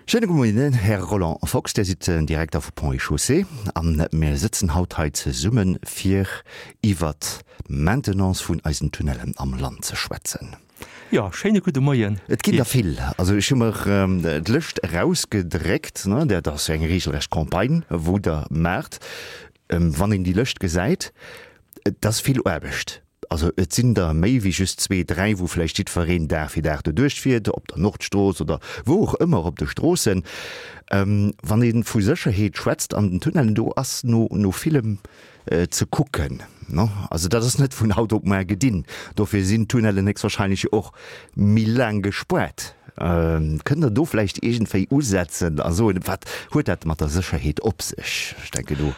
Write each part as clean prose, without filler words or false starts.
Schéine gudde Moien, Här Roland Fox, Dir sidd den Direkter vu Ponts et Chaussées a mir sëtzen haut hei zesumme fir iwwert d'Maintenance vun eisen Tunnellen am Land ze schwätzen. Jo, schéine gudde Moien. Et ginn der vill. Also ech hu mer d'Lëscht erausgedréckt, ne, dat ass eng regelrecht Campagne wou Der maacht. Wann een déi Lëscht gesäit, et ass vill Aarbecht. Also et sinn der méi wéi just zwee, dräi, wou vläicht jiddwereen Dag fir Dag doduerch fiert, op der Nordstrooss oder wou och ëmmer op de Stroossen. Wann ee vu Sécherheet schwätzt an den Tunnellen, do ass no no villem ze kucken. Also dat ass net vun haut op muar gedinn. Dofir sinn d'Tunnellen héchstwahrscheinlech och méi laang gespuert. Kënnt Der do vläicht iergendwéi usetzen a soen, wat huet dat mat der Sécherheet op sech? Ech denken do,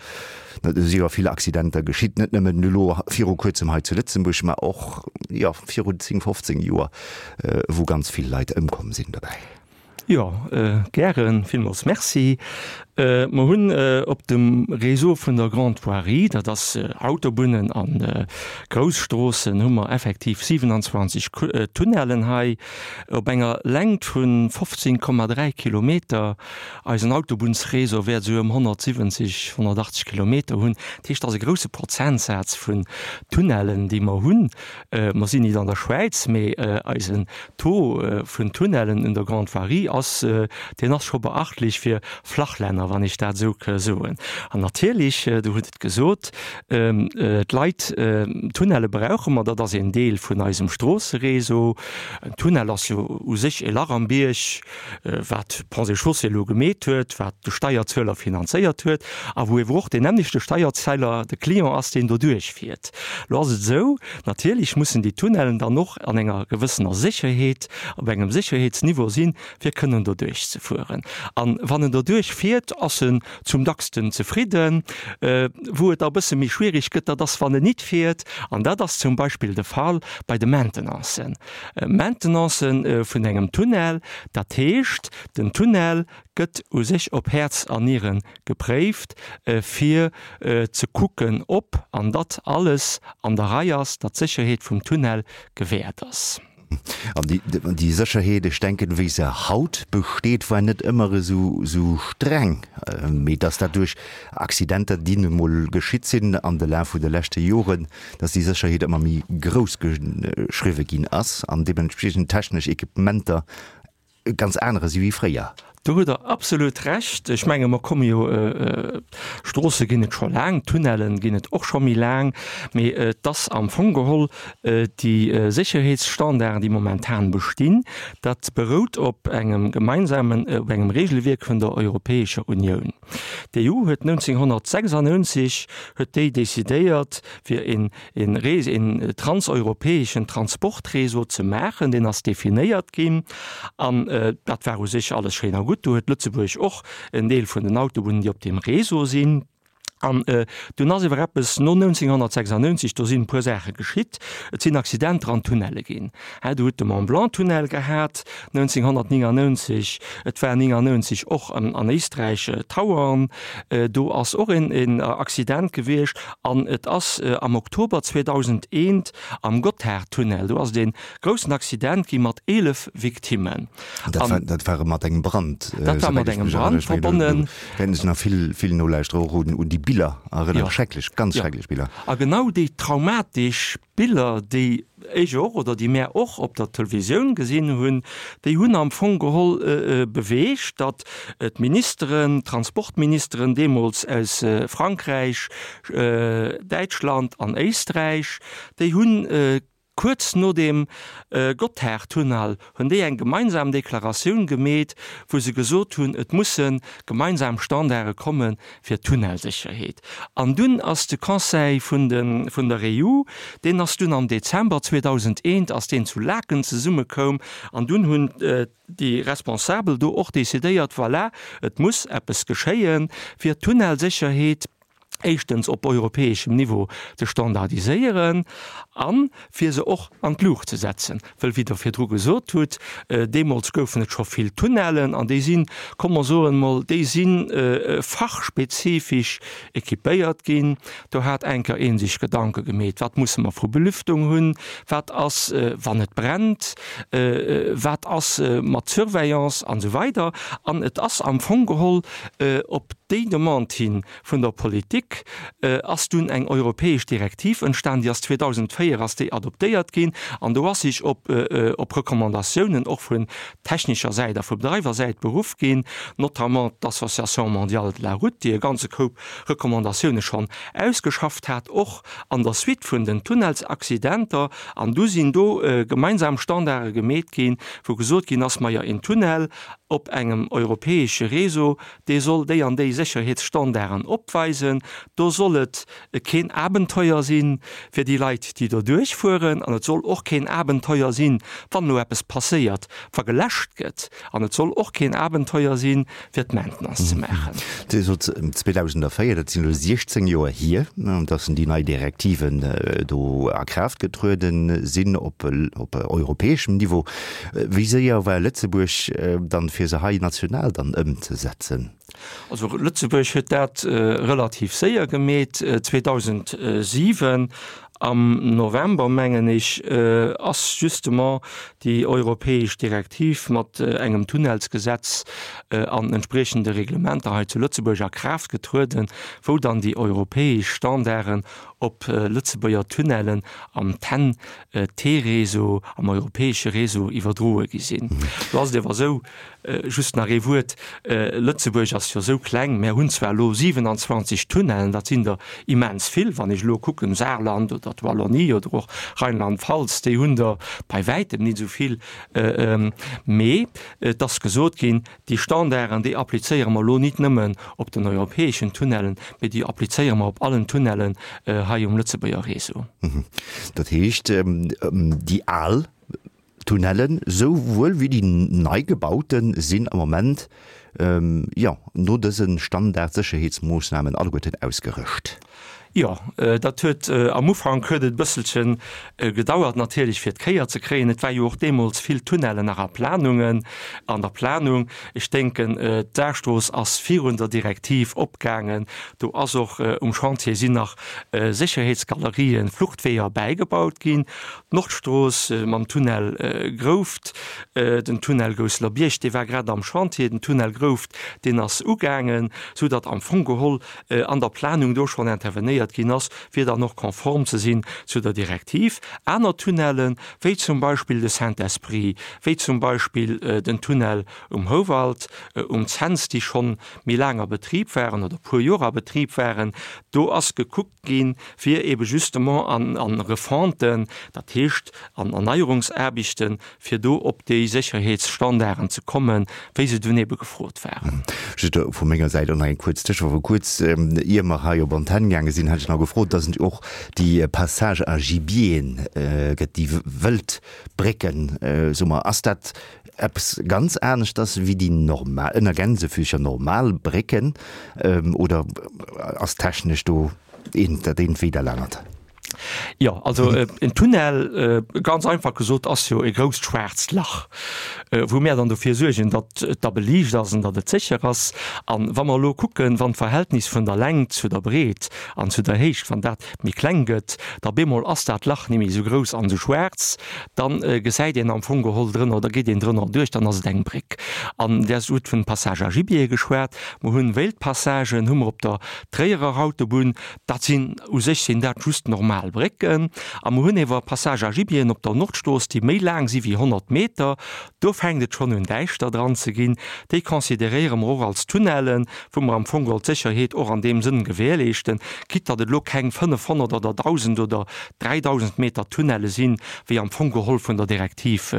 do si jo vill Accidenter geschitt, net nëmmen elo viru Kuerzem hei zu Lëtzebuerg, mä och, jo, virun 10, 15 Joer, wou ganz vill Leit ëmkomm sinn dobäi. Jo, gären. Villmools Merci. Mer hunn op dem Réseau vun der Grande Voirie, dat ass Autobunnen a Grousstroossen, hu mer effektiv 27 Tunnellen hei op enger Längt vu 15,3 Kilometer. Eisen Autobunnsréseau wäert esou ëm 170, 180 Kilometer hunn. Dat heescht, dat ass e grouse Prozentsaz vun Tunnellen, déi mer hunn. Mer sinn nit an der Schwäiz, mee eisen Taux vun Tunnellen un der Grande Voirie ass, deen ass scho beachtlech fir Flachlänner, wann ech dat esou ka soen. An natierlech, Der hutt et gesot, d'Leit, Tunnelle brauche mer, dat ass een Deel vun eisem Stroosseréseau. En Tunnel ass jo u sech e Lach am Bierg, wat Ponts et Chaussées elo gemeet huet, wat de Steierzueler finanzéiert huet a wou ewer och deen nämmlechte Steierzeller de Client ass, deen doduerch fiert. Elo ass et esou, natierlech mussen déi Tunnellen dann och an enger gewëssener Sécherheet, op engem Sécherheetsniveau sinn, fir kënnen doduerch ze fueren. A wann en doduerch fiert, ass en zum dacksten zefridden. Wou et da e bësse méi schwierig gëtt, dat ass, wann en nit fiert. An dat ass zum Beispill de Fall bei de Maintenancen. Maintenancen vun engem Tunnel, dat heescht, den Tunnel gëtt u sech op Häerz an Niere gepréift, fir ze kucken, ob an datt alles an der Rei ass, datt d'Sécherheet vum Tunnel gewäert ass. An déi Sécherheet, ech denken, wéi se haut besteet, war net ëmmer esou streng, mee datt dat duerch Accidenter, déi nu mol geschitt sinn an de Laf vun de leschte Joren, datt déi Sécherheet ëmmer méi grouss geschriwwe ginn ass an deementspriechend technesch Equipementer e ganz anere si wéi fréier. Do hutt Der absolut Recht. Ech menge mer komme jo, Stroosse ginn et scho laang, Tunnellen ginn et och scho méi laang, mee et ass am Fong geholl déi Sécherheetsstandarden, déi momentan bestinn, dat berout op engem gemeinsamen, op engem Regelwierk vun der Europäescher Unioun. D'EU huet 1996 huet déi decidéiert, fir een een Rees, een transeuropäeschen Transportréseau ze maachen, deen ass definéiert ginn an dat war u sech alles schéin a gutt. Do huet Lëtzebuerg och en Deel vun den Autobunnen, déi op deem Réseau sinn. An dunn ass ewer eppes no 1996, do sinn e puer Saache geschitt, et sinn Accidenter an Tunnelle ginn. Du hutt de Mont-Blanc-Tunnel gehat 1999, et war 99 och an Éisträich Tauern, do ass och een Accident gewiescht. An et ass am Oktober 2001 am Gotthardtunnel, do ass et ee groussen Accident gi mat 11 Victimmen. Dat war, dat war mat engem Brand. Dat war mat engem Brand verbonnen. Wäerten sech nach vill, vill Nolauschterer och un déi Biller erënneren. Schrecklech, ganz schrecklech Biller. A genau déi traumatesch Biller, déi ech och oder déi mär och op der Televisioun gesinn hunn, déi hunn am Fong geholl beweegt, datt d'Ministeren, d'Transportministeren deemools aus Frankräich, Däitschland an Éisträich, déi hunn kuerz no deem Gotthardtunnel hunn déi eng gemeinsam Deklaratioun gemeet, wou se gesot hunn, et musse gemeinsam Standarde komme fir d'Tunnelsécherheet. An dunn ass de Conseil vun de vun der EU, deen ass dunn am Dezember 2001 ass deen zu Laeken zesummekoum an dunn hunn déi Responsabel do och decidéiert, voilà, et muss eppes geschéie fir d'Tunnelsécherheet. Éischtens op europäeschem Niveau ze standardiséieren a fir se och an d'Luucht ze setzen. Wëll, wéi Der virdru gesot hutt, deemools goufen et scho vill Tunnellen an déi sinn, komm mer soen emol, déi si fachspezifesch équipéiert ginn. Do hat enker ee sech Gedanke gemeet, wat musse mer vu Belüftung hunn, wat ass wann et brennt, wat ass mat Surveillance an esou weider. An et ass am Fong geholl op déi Demande hin, Vun der Politik ass dunn eng europäesch Direktiv entstan, déi ass 2004 ass déi adoptéiert ginn an do ass sech op op Recommandatiounen och vun technescher Säit a vu Bedreiwersäit beruff ginn, notamment d'Association mondiale de la route, déi e ganze Koup Recommandatioune schonn ausgeschafft hat, och an der Suite vun den Tunnelsaccidenter. An du sinn do gemeinsam Standarde gemeet ginn, wou gesot ginn ass, Majo, een Tunnel op engem europäesche Réseau, dee soll déi an déi Sécherheetsstandarden opweisen, do soll et keen Abenteuer si fir déi Leit, déi do duerchfueren, an et soll och keen Abenteuer sinn, wann elo eppes passéiert, wa geläscht gëtt, an et soll och keen Abenteuer sinn, fir d'Maintenance ze maachen. Dir sot 2004, dat sinn elo 16 Joer hier, datt déi nei Direktiven do a Kraaft getrueden sinn op europäeschem Niveau. Wéi séier war Lëtzebuerg dann, fir se hei national dann ëmzesetzen? Also Lëtzebuerg huet dat relativ séier gemeet. 2007 am November, mengen ech, ass justement déi europäesch Direktiv mat engem Tunnelsgesetz an entspriechende Reglementer hei zu Lëtzebuerg a Kraaft getrueden, wou dann déi europäesch Standarden op Lëtzebuerger Tunnellen am TEN T-Réseau, am europäesche Réseau iwwerdroe gi sinn. Do ass et awer esou, just nach ee Wuert, Lëtzebuerg ass jo esou kleng, mär hunn zwar elo 27 Tunnellen, dat sinn der immens vill, wann ech elo kucken, Saarland oder d'Wallonie oder och Rheinland-Pfalz, déi hunn der bei wäitem nit esou vill, mee et ass gesot ginn, Déi Standarden, déi applizéiere mer elo nit nëmmen op den europäeschen Tunnellen, mee déi applizéiere mer op allen Tunnellen hei um Lëtzebuerger Réseau. Dat heescht, déi al Tunnellen souwuel wéi déi nei gebaute sinn am Moment, jo, no dëse Standardsécherheetsmoossnamen alleguerten ausgerëscht. Jo, dat huet am Ufank huet et e bësselche gedauert natierlech fir d'Kéier ze kréien. Et war jo och deemools vill Tunnellen nach a Planungen, an der Planung. Ech denken, d'Saarstrooss ass virun der Direktiv opgaangen. Do ass och um Chantier sinn nach Sécherheetsgalerien, Fluchtweeër bäigebaut ginn. D'Nordstrooss mam Tunnel Grouft, den Tunnel Gousseler-Bierg, dee war grad am Chantier, den Tunnel Grouft, deen ass ugaangen, soudatt am Fong geholl an der Planung do schonn intervenéiert ginn ass, fir dann och konform ze sinn zu der Direktiv. Aner Tunnellen, wéi zum Beispill de Saint-Esprit, wéi zum Beispill den Tunnel um Houwald, um Cents, déi schonn méi laang a Betrib waren oder e puer Joer a Betrib waren, do ass gekuckt ginn, fir ebe justement an Refonten, dat heescht an Erneierungsaarbechten, fir do op déi Sécherheetsstandarden ze kommen, wéi se dunn ebe gefrot waren. Just vu menger Säit och nach eng kuerz Tëschefro. Kuerz ier mer hei op Antenn gaange sinn, hat ech nach gefrot, dass et och déi Passages à gibieren gëtt, déi Wëldbrécken, soe mer. Ass dat eppes ganz aneschters wéi déi normal, ënner Gänsefüßcher, normal Brécken oder ass technesch do eent dat eent wéi dat anert? Jo, also en Tunnel, ganz einfach gesot, ass jo e grousst schwaarzt Lach, wou mär dann dofir suergen, datt et da beliicht ass an datt et sécher ass. An wa mer elo kucken, wann d'Verhältnis vun der Längt zu der Breet an zu der Héicht, wann dat méi kleng gëtt, da bemol ass dat Lach ni méi esou grouss an esou schwaarz, da gesäit een am Fong geholl drënner, da geet een drënner duerch, dann ass et eng Bréck. An Dir hutt vun Passage à gibier geschwat. Mer hunn Wéildpassagen hu mer op der Tréierer Autobunn. Dat sinn, u sech sinn dat just normal Brécken. A mer hunn ewer Passage à gibieren op der Nordstrooss, déi méi laang si wéi 100 Meter. Do fänkt et schonn un däischter dran ze ginn. Déi consideréiere mer och als Tunnellen, wou mer am Fong geholl d'Sécherheet och an deem Sënn gewährleeschten, quitte datt et elo keng 500 oder 1.000 oder 3.000 Meter Tunnelle sinn, wéi am Fong geholl vun der Direktiv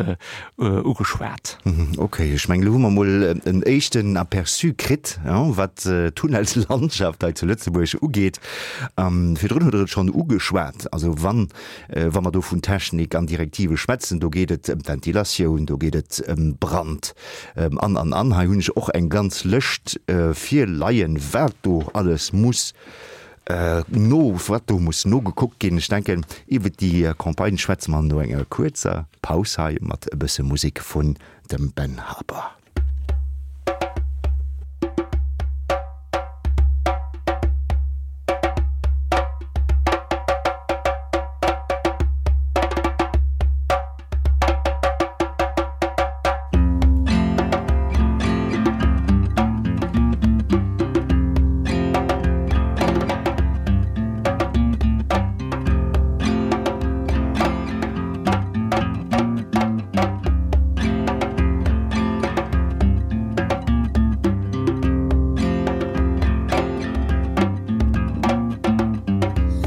ugeschwat. Ok, ech mengen, elo hu mer emol en éischten Aperçu kritt, wat d'Tunnelslandschaft hei zu Lëtzebuerg ugeet. Virdrun hutt Der et schonn ugeschwat, also wann, wa mer do vun Technik an Direktive schwätzen, do geet et ëm d'Ventilatioun, do geet et ëm Brand an, an, an. Hei hunn ech och eng ganz Lëscht virleien, wat do alles muss. No, wat do muss nogekuckt ginn. Ech denken, iwwert déi Campagne schwätze mer no enger kuerzer Paus hei mat e bësse Musek vun dem Ben Harper.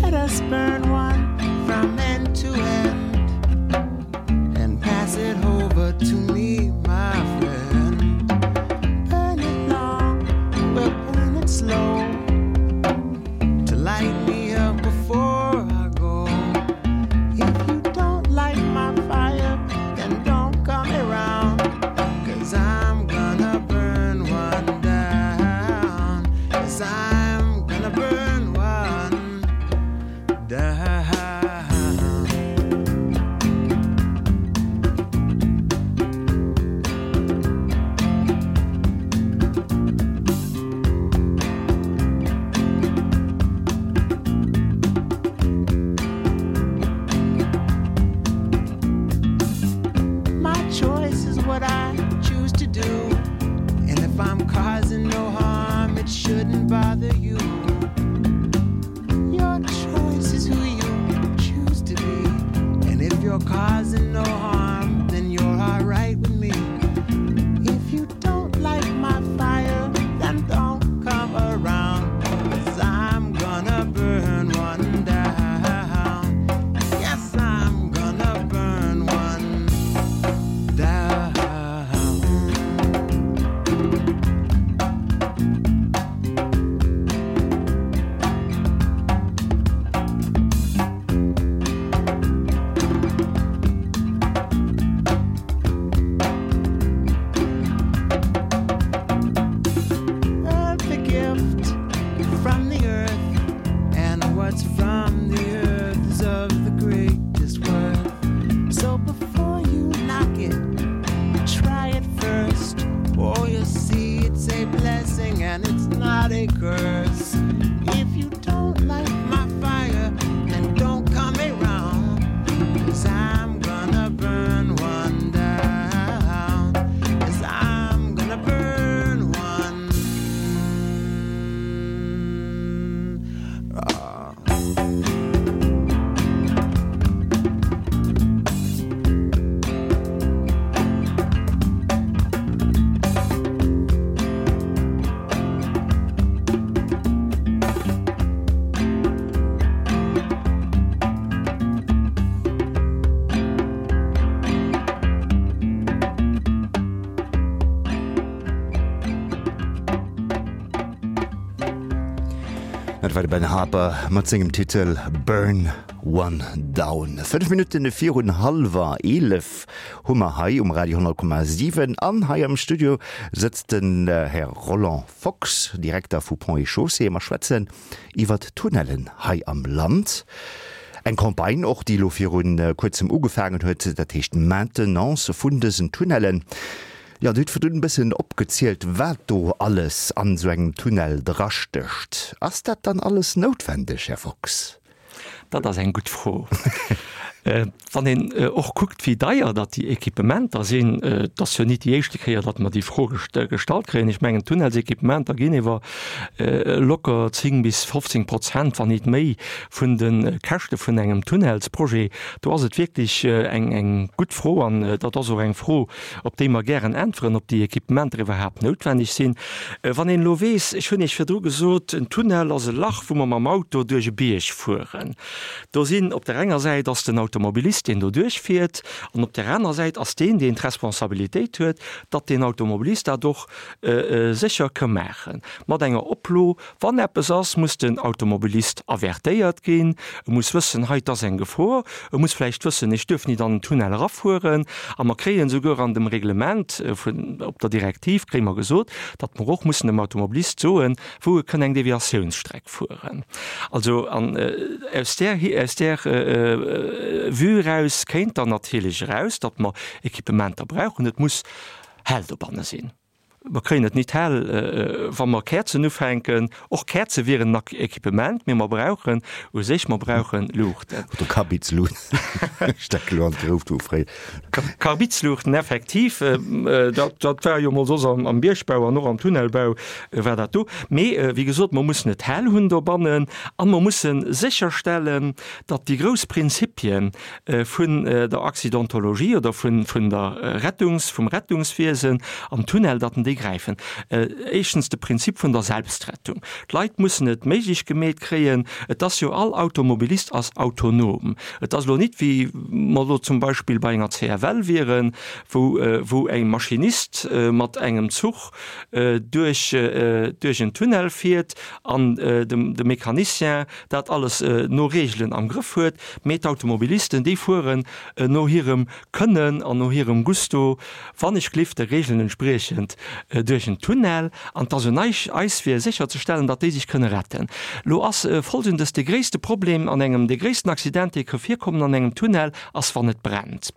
Let us burn one from end to end and pass it over to me, my friend. Burn it long, we'll burn it slow to light me up before I go. If you don't light my fire, then don't come around. Cause I'm gonna burn one down. Cause I'm gonna burn one down. My choice is what I choose to do. And if I'm causing no harm, it shouldn't bother you. Your choice is who you choose to be. And if you're causing no harm, then you're all right with me. If you don't like my fire, then don't come around. Cause I'm gonna burn one down. Yes, I'm gonna burn one down. Earth a gift from the earth, and what's from the earth is of the greatest worth. So before you knock it, try it first. Oh, you'll see it's a blessing and it's not a curse. If you don't like my fire, then don't come around. Cause I'm gonna burn one down. Cause I'm gonna burn one. Ah. Dat war de Ben Harper mat sengem Titel Burn One Down. 5 Minutten virun hallwer 11 hu mer hei um Radio 10,7 an hei am Studio sëtzt den Här Roland Fox, Direkter vu Ponts et Chaussées. Mer schwätzen iwwert d'Tunnellen hei am Land. Eng Campagne och, déi elo viru kuerzem ugefaangen huet, dat heescht Maintenance vun dësen Tunnellen. Jo, Dir hutt virdrun e bëssen opgezielt, wat do alles an esou engem Tunnel drastécht. Ass dat dann alles noutwendeg, Här Fox? Dat ass eng gutt Fro. Wann een och kuckt, wéi deier datt déi Equipementer sinn, et ass jo nit déi éischte Kéier, datt mer déi Fro gestallt kréien. Ech mengen, d'Tunnelsequipementer ginn iwwer locker 10 bis 15 Prozent, wann nit méi, vun de Käschte vun engem Tunnelsprojet. Do ass et wierklech eng gutt Fro an dat ass och eng Fro, op déi mer gären äntweren, ob déi Equipementer iwwerhaapt noutwenneg sinn. Wann een elo weess, ech hunn Iech virdru gesot, en Tunnel ass e Lach, wou mer mam Auto duerch e Bierg fueren. Do sinn, op der enger Säit ass den. Automobilist, deen do duerchfiert, an op där anerer Säit ass deen, deen d'Responsabilitéit huet, datt deen Automobilist dat och sécher ka maachen. Mat enger Oplo, wann eppes ass, muss den Automobilist avertéiert ginn, e muss wëssen, hei, 't ass eng Gefor, e muss vläicht wëssen, ech duerf nit an den Tunnel erafueren. A mer kréien esouguer an dem Reglement vun, op der Direktiv kréie mer gesot, datt mer och mussen dem Automobilist soen, wou e kënn eng Deviatiounsstreck fueren. Also, an aus där, aus där Vue eraus kéint dann natierlech eraus, datt mer Equipementer brauchen. Et muss hell dobanne sinn. Mer kréien et nit hell, wa mer Käerzen ufänken. Och Käerze wieren en Equipement, mee mer brauchen u sech, mer brauchen Luuchten. Oder Karbidsluuchten. Ech denken elo an d'Grouft vu fréier. Karbidsluuchten, effektiv. Dat, dat war jo emol soss am Biergbau an och am Tunnelbau war dat do. Mee wéi gesot, mer mussen et hell hunn dobannen a mer musse sécherstellen, datt déi grouss Prinzipien, vun der Accidentologie oder vun vun der Rettungs, vum Rettungswiesen am Tunnel, datt en déi gräifen. Éischtens de Prinzip vun der Selbstrettung. D'Leit mussen et méiglech gemeet kréien, et ass jo, all Automobilist ass autonom. Et ass elo nit wéi mer elo zum Beispill bei enger CFL wieren, wou wou e Maschinist mat engem Zuch duerch duerch en Tunnel fiert an de Mecanicien dat alles no Reegelen am Grëff huet, mee d'Automobilisten, déi fueren no hirem Kënnen an no hirem Gusto, wann ech glift de Reegelen entspriechend, duerch en Tunnel. An 't ass un eis, eis fir sécherzestellen, datt déi sech kënne retten. Lo ass Folgendes de gréisste Problem an engem, de gréissten Accident, dee ka virkommen an engem Tunnel, ass wann et brennt.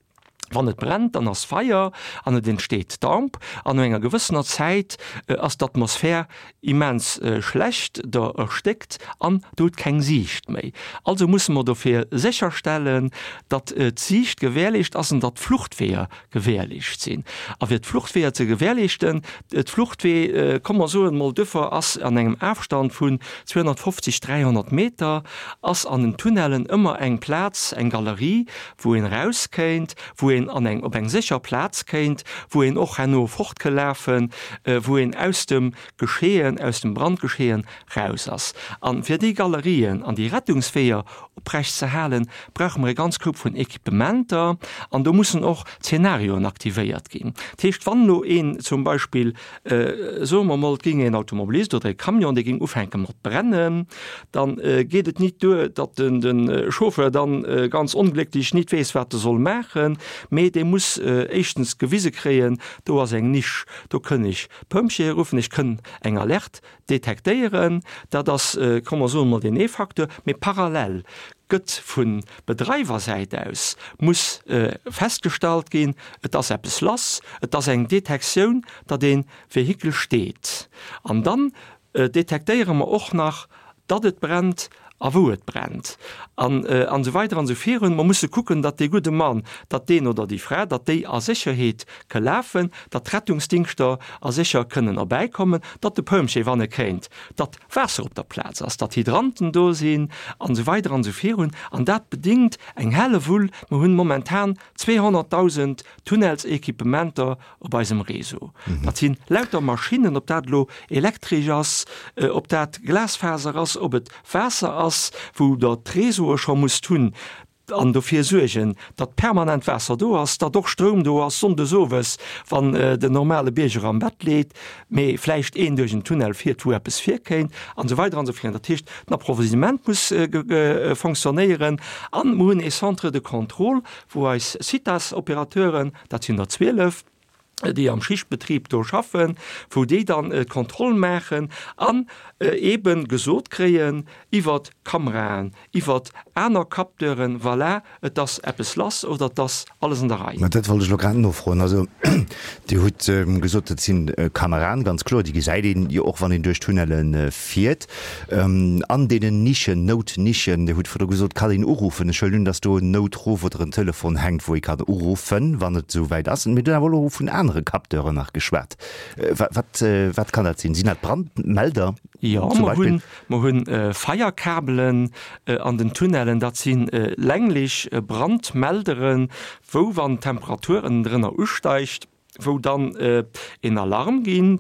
Wann et brennt, dann ass Feier an et entsteet Damp an no enger gewëssener Zäit ass d'Atmosphär immens schlecht, der erstéckt an der hutt keng Siicht méi. Also musse mer dofir sécherstellen, datt d'Siicht gewährleescht ass an datt d'Fluchtweeër gewährleescht sinn. A fir d'Fluchtweeër ze gewährleeschten, d'Fluchtwee, komm mer soen emol, duerfir ass an engem Afstand vun 250, 300 Meter ass an den Tunnellen ëmmer eng Plaz, eng Galerie, wou een eraus kéint, wou een an eng, op eng sécher Plaz kéint, wou een och herno fort ke lafen, wou een aus dem Geschehen, aus dem Brandgeschehen raus ass. A fir déi Galerien an déi Rettungsweeër oprecht ze halen, brauche mer e ganz Koup vun Equipementer an do mussen och Zenarioen aktivéiert ginn. Dat heescht, wann elo een zum Beispill, soe mer emol, et géing een Automobilist oder e Camion, dee géing ufänke mat brennen, da geet et nit duer, datt de Chauffeur dann ganz onglécklech nit weess, wat e soll maachen, mee dee muss éischtens gewise kréien, do ass eng Nisch, do kënn ech Pompjeeë ruffen, ech kënn eng Alerte detektéieren. Dat ass, komm mer soen emol, deen ee Facteur. Mee parallel gëtt vu Bedreiwersäit aus muss festgestallt ginn, et ass eppes lass, et ass eng Detektioun, datt ee Vehikel steet. An dann detektéiere mer och nach, datt et brennt a wou et brennt an an esou weider an esou virun. Mer musse kucken, datt dee gudde Mann, datt deen oder déi Fra, datt déi a Sécherheet ke lafen, datt d'Rettungsdingschter a sécher kënnen erbäikommen, datt de Pompjee, wann e kéint, datt Waasser op der Plaz ass, datt Hydranten do sinn an esou weider an esou virun. An dat bedingt eng Hellewull. Mer hunn momentan 200.000 Tunnelsequipementer op eisem Réseau. Dat si lauter Maschinnen, ob dat elo elektresch ass, ob dat Glasfaser ass, ob et Waasser ass, wou Der d'Réseaue scho musst hunn an dofir suergen, datt permanent Waasser do ass, datt och Stroum do ass sonndes owes, wann den normale Bierger am Bett leet, mee vläicht een duerch en Tunnel fiert, wou eppes virkéint an esou weider an esou virun. Dat heescht, den Approvisionnement muss fonctionnéieren an mer hunn ee Centre de contrôle, wou eis Citas-Opérateuren, dat sinn der 12, déi am Schichtbetrib do schaffen, wou déi dann d'Kontroll maachen an eebe gesot kréien iwwert Kameraen, iwwert aner Capteuren, voilà, et ass eppes lass oder et ass alles an der Rei. Mä dat wollt ech elo grad nofroen. Also Dir hutt gesot, dat si Kameraen, ganz kloer, déi gesäit een jo och, wann een duerch d'Tunnelle fiert. An deenen Nischen, Noutnischen, Dir hutt virdru gesot, kann een uruffen. Ech huelen un, datt do en Noutruff oder en Telefon hänkt, wou ee kann uruffen, wann et esou wäit ass. Mir hunn awer elo vun anere Capteuren nach geschwat. Wat, wat kann dat sinn? Sinn dat Brandmelder Jo, zum mer Beispill? hunn, mer hunn Feierkabelen an den Tunnellen. Dat si länglech Brandmelderen, wou, wann d'Temperatur ënnendrënner usteigt, wou dann een Alarm ginn.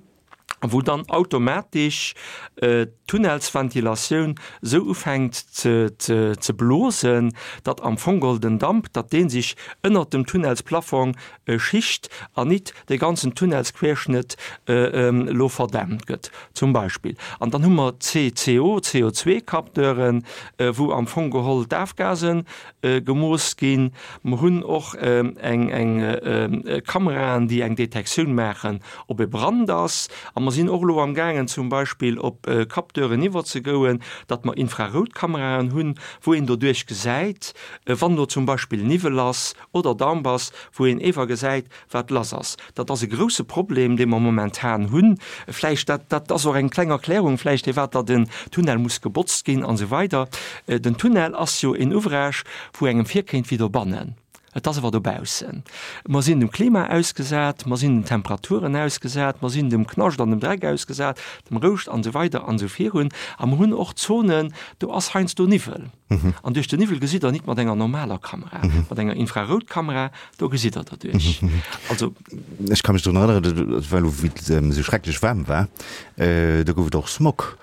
Wou dann automatesch d'Tunnelsventilatioun esou ufänkt ze blosen, datt am Fong geholl den Damp, datt dee sech ënnert dem Tunnelsplafong schicht an nit de ganzen Tunnelsquerschnëtt elo verdämpt gëtt zum Beispill. An dann hu mer d'CCO, CO2-Capteuren, wou am Fong geholl d'Afgase gemooss ginn. Mer hunn och eng Kameraen, déi eng Detektioun maachen, ob e Brand ass. A mer sinn och elo amgaangen, zum Beispill op Capteuren iwwerzegouen, datt mer Infraroutkameraen hunn, wou een doduerch gesäit, wann elo zum Beispill Niwwel ass oder Damp ass, wou een ewer gesäit, wat lass ass. Dat ass e grouse Problem, dee mer momentan hunn. Vläicht, dat, dat ass och eng kleng Erklärung vläicht, firwat datt den Tunnel muss gebotzt ginn an esou weider. Den Tunnel ass jo en Ouvrage, wou engem virkéint wéi dobannen. Et ass awer dobaussen. Mer sinn dem Klima ausgesat, mer sinn den Temperaturen ausgesat, mer sinn dem Knascht an dem Dreck ausgesat, dem Rouscht an esou weider an esou virun. A mer hunn och Zonen, do ass heiansdo Niwwel. An duerch den Niwwel gesitt Der nit mat enger normaler Kamera. Mat enger Infraroutkamera, do gesitt Der derduerch. Also. Ech ka mech drun erënneren, et war elo wéi et esou schrecklech waarm war, do gouf et och Smog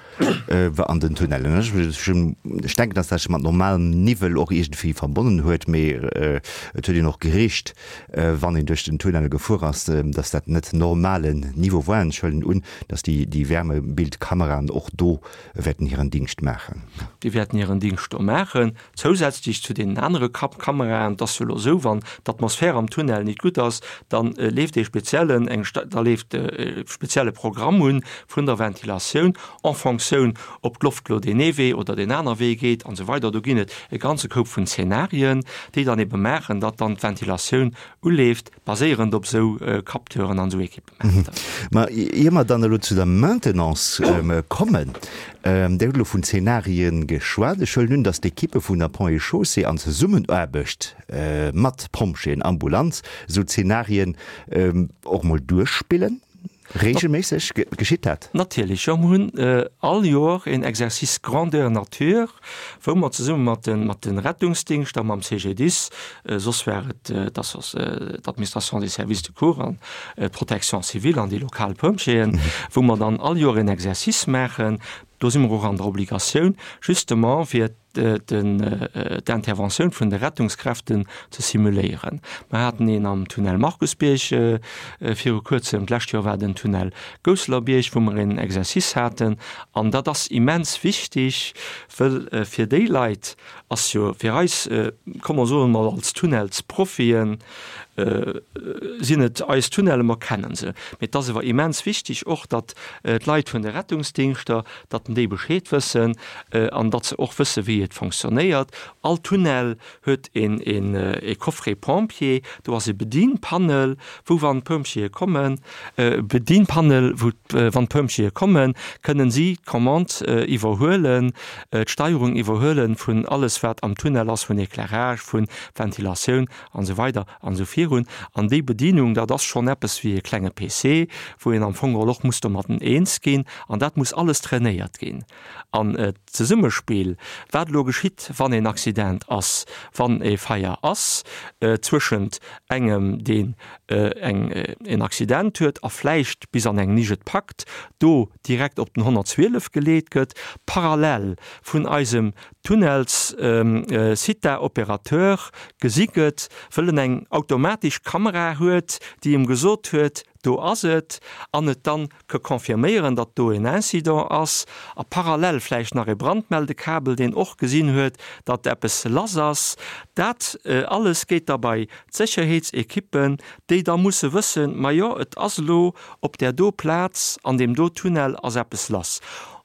an den Tunnellen. Ech denken, dass dat sech mat normalem Niwwel och iergendwéi verbonnen huet, mee et huet een och gericht, wann een duerch den Tunnel gefuer ass, dass dat net normalen Niveau war. An ech huelen un, dass déi Wärmebildkameraen och do wäerten hiren Dingscht maachen. Déi wäerten hiren Dingscht do maachen, zousätzlech zu deenen anere Kameraen. Et ass jo elo esou, wann d'Atmosphär am Tunnel nit gutt ass, da leeft ee speziellen, eng, da leeft e spezielle Programm un vun der Ventilatioun en Fonctioun, ob d'Loft elo deen ee Wee oder deen aner Wee geet an esou weider. Do ginn et e ganze Koup vun Zenarien, déi dann ebe maachen, datt dann d'Ventilatioun uleeft, baséierend op esou Capteuren an esou Equipementer. Ma ier mer dann elo zu der Maintenance kommen, Dir hutt elo vun Zenarien geschwat. Ech huelen un, datt d'Ekippe vun der Ponts et Chaussées an Zesummenaarbecht mat Pompjeeën, Ambulanz esou Zenarien och mol duerchspillen. Regelméisseg geschitt dat? Natierlech, jo. Mer hunn all Joer een Exercice grandeur nature, wou mer zesumme mat de mat de Rettungsdingschter, mam CGDIS, soss war et d'Administration des services de cours an d'Protection civile an déi lokal Pompjeeën, wou mer dann all Joer een Exercice maachen. Do si mer och an der Obligatioun, justement fir d'Interventioun vun de Rettungskräften ze simuléieren. Mer haten een am Tunnel Markusbierg viru kuerzem, d'lescht Joer war den Tunnel Gousselerbiërg, wou mer een Exercice haten. An dat ass immens wichtig, wëll fir déi Leit ass jo, fir eis, komm mer soen emol als Tunnelsprofien, sinn et eis Tunnellen, mer kennen se. Mee et ass awer immens wichtig och, datt d'Leit vun de Rettungsdingschter, datt déi Bescheed wëssen an datt se och wësse wéi et fonctionnéiert. All Tunnel huet een e Coffret pompier, do ass e Bedienpanel, wou wann d'Pompjeeë kommen, Bedienpanel, wou wann d'Pompjeeë kommen, kënnen si d'Commande iwwerhuelen, d'Steierung iwwerhuelen vun alles wat am Tunnel ass, vun Éclairage, vun Ventilatioun an esou weider an esou virun. An déi Bedienung, dat ass schonn eppes wéi e klenge PC, wou een am Fong geholl och muss domatten eens ginn. An dat muss alles trainéiert ginn. An d'Zesummespill, wat elo geschitt, wann een Accident ass, wann e Feier ass, zwëschent engem, deen eng en Accident huet a vläicht bis an eng Nisch et packt, do direkt op den 112 geleet gëtt, parallel vun eisem Tunnels Sita Opérateur gesi gëtt, wëll en eng automatesch Kamera huet, déi em gesot huet, do ass et, an et dann ke confirméieren, datt do en Incident ass, a parallel vläicht nach e Brandmeldekabel, deen och gesinn huet, datt eppes lass ass. Dat alles geet da bei d'Sécherheetsekippen, déi da musse wëssen, majo, et ass elo op där do Plaz, an deem do Tunnel ass eppes lass.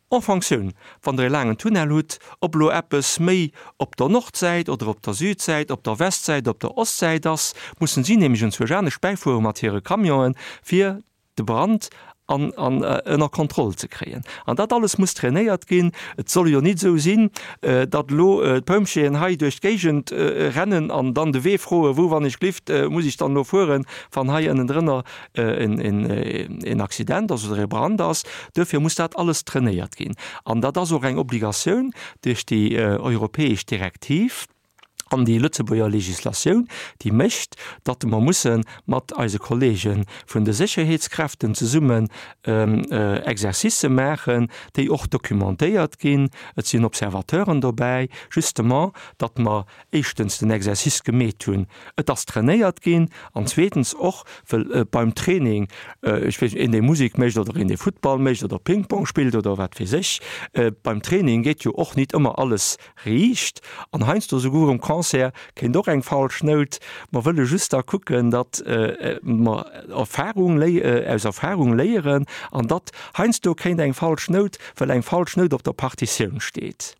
En Fonctioun, wann Der e laangen Tunnel hutt, ob elo eppes méi op der Nordsäit oder op der Südsäit, op der Westsäit, op der Ostsäit ass, mussen si nämlech enzwousch anescht bäifuere mat hire Camionen, fir de Brand an, an ënner Kontroll ze kréien. An dat alles muss trainéiert ginn. Et soll jo nit esou sinn, datt elo d'Pompjeeën hei duerch d'Géigend rennen an dann de Wee froen, wou wann ech glift muss ech dann elo fueren, wann hei ënnendrënner en Accident ass oder e Brand ass. Duerfir muss dat alles trainéiert ginn. An dat ass och eng Obligatioun duerch déi europäesch Direktiv. An déi Lëtzebuerger Legislatioun, déi mécht, datt mer musse mat eise Kollege vun de Sécherheetskräften zesummen Exercicë maachen, déi och documentéiert ginn. Et sinn Observateuren dobäi, justement, datt mer éischtens den Exercice gemeet hunn, et ass trainéiert ginn, an zweetens och, well beim Training, ech weess net, een dee Musek mécht oder een dee Futtball mécht oder Ping-Pong spillt oder wat weess ech, beim Training geet jo och nit ëmmer alles Riicht, an heiansdo souguer um Concert kéint och eng falsch Nout. Mer wëlle just da kucken, datt mer Erfahrung aus Erfahrung léieren an datt heiansdo kéint eng falsch Nout, well eng falsch Nout op der Partitioun steet,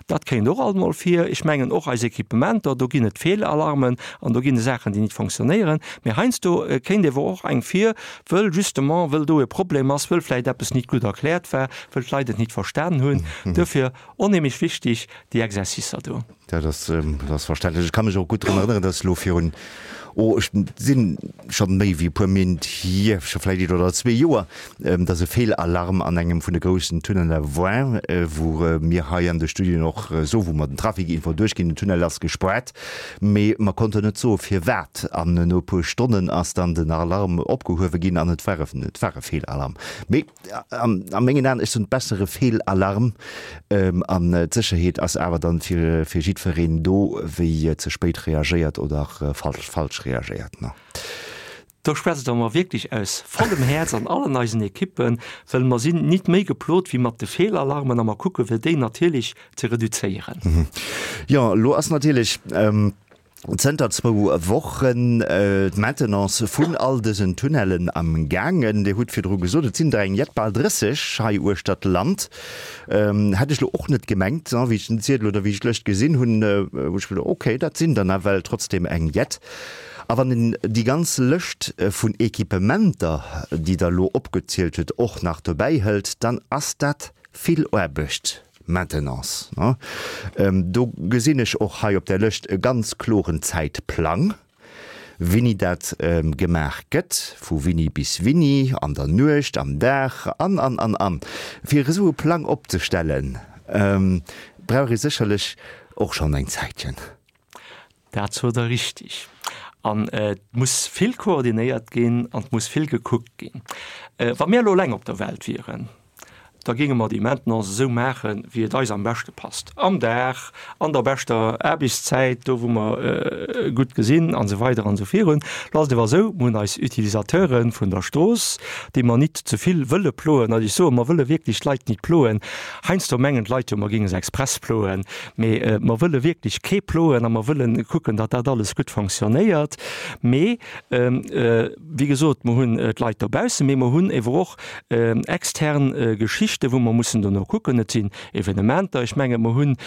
dat kéint och alt mol vir. Ech mengen och eis Equipementer, do ginn et Feelalarmen an do ginn et Saachen, déi nit fonctionnéieren. Mee heiansdo kéint ewer och eng vir, wëll justement, wëll do e Problem ass, wëll vläicht eppes nit gutt erkläert war, wëll d'Leit et nit verstan hunn. Duerfir Onheemlech wichtig, déi Exercicer do. Dat ass, dat ass verständlech. Ech ka mech och gutt drun erënneren, dass elo virun, oh, ech sinn scho méi wéi e puer Méint hier, scho vläicht een oder zwee Joer, dass e Feelalarm an engem vun de groussen Tunneler war, wou mir hei an de Studioen och soen, wou mer den Trafic-Info duerchginn, den Tunnel ass gespaart, mee mer konnten net soe firwat. An no e puer Stonnen ass dann den Alarm opgehuewe ginn an et war e, et war e Feelalarm. Mee A mengen Aen, ech soen, bessere Feelalarm an d'Sécherheet ass awer dann fir jiddwereen do, wéi ze spéit reagéiert oder falsch reagéiert. Do schwätzt Der mer wierklech aus vollem Häerz an allen eisen Ekippen, well mer sinn nit méi geplot wéi mat de Feelalarmen a mer kucke fir déi natierlech ze reduzéieren. Jo, elo ass natierlech Zënter zwou Wochen d'Maintenance vun all dësen Tunnellen am gaangen. Dir hutt virdru gesot, et sinn der eng jett, bal 30 hei uechter d'Land. Hätt ech lo och net gemengt, wéi ech den Ziedel oder wéi ech d'Lëscht gesinn hunn, hu ech geduecht, okay, dat sinn der nawell trotzdem eng jett. A wann een déi ganz Lëscht vun Equipementer, déi Der elo opgezielt hutt, och nach dobäi hëlt, dann ass dat vill Aarbecht. Maintenance, ne? Do gesinn ech och hei op där Lëscht e ganz kloren Zäitplang, wéini dat gemaach gëtt, vu wéini bis wéini, an der Nuecht, am Dag an, an, an, an. Fir esou e Plang opzestellen, brauch ee sécherlech och schonn eng Zäitchen. Dat sot Der richtig. An et muss vill koordinéiert ginn an et muss vill gekuckt ginn. Wa mir elo eleng op der Welt wieren, da géinge mer déi Maintenance esou maachen, wéi et eis am beschte passt, am Dag, an der beschter Aarbechtszäit, do wou mer gutt gesinn an esou weider an esou virun. Lo ass et awer esou, mir hunn eis Utilisateure vun der Strooss, déi mer nit ze vill wëlle ploen. Also ech soen, mer wëlle wierklech d'Leit nit ploen. Heiansdo mengen d'Leit jo, mer géinge se express ploen. Mee mer wëlle wierklech kee ploen a mer wëlle kucken, datt dat alles gutt fonctionnéiert. Mee wéi gesot, mer hunn d'Leit dobaussen, mee mer hunn ewer och extern Geschichten, wou mer mussen dono kucken. Et sinn Evenementer, ech menge mer hunn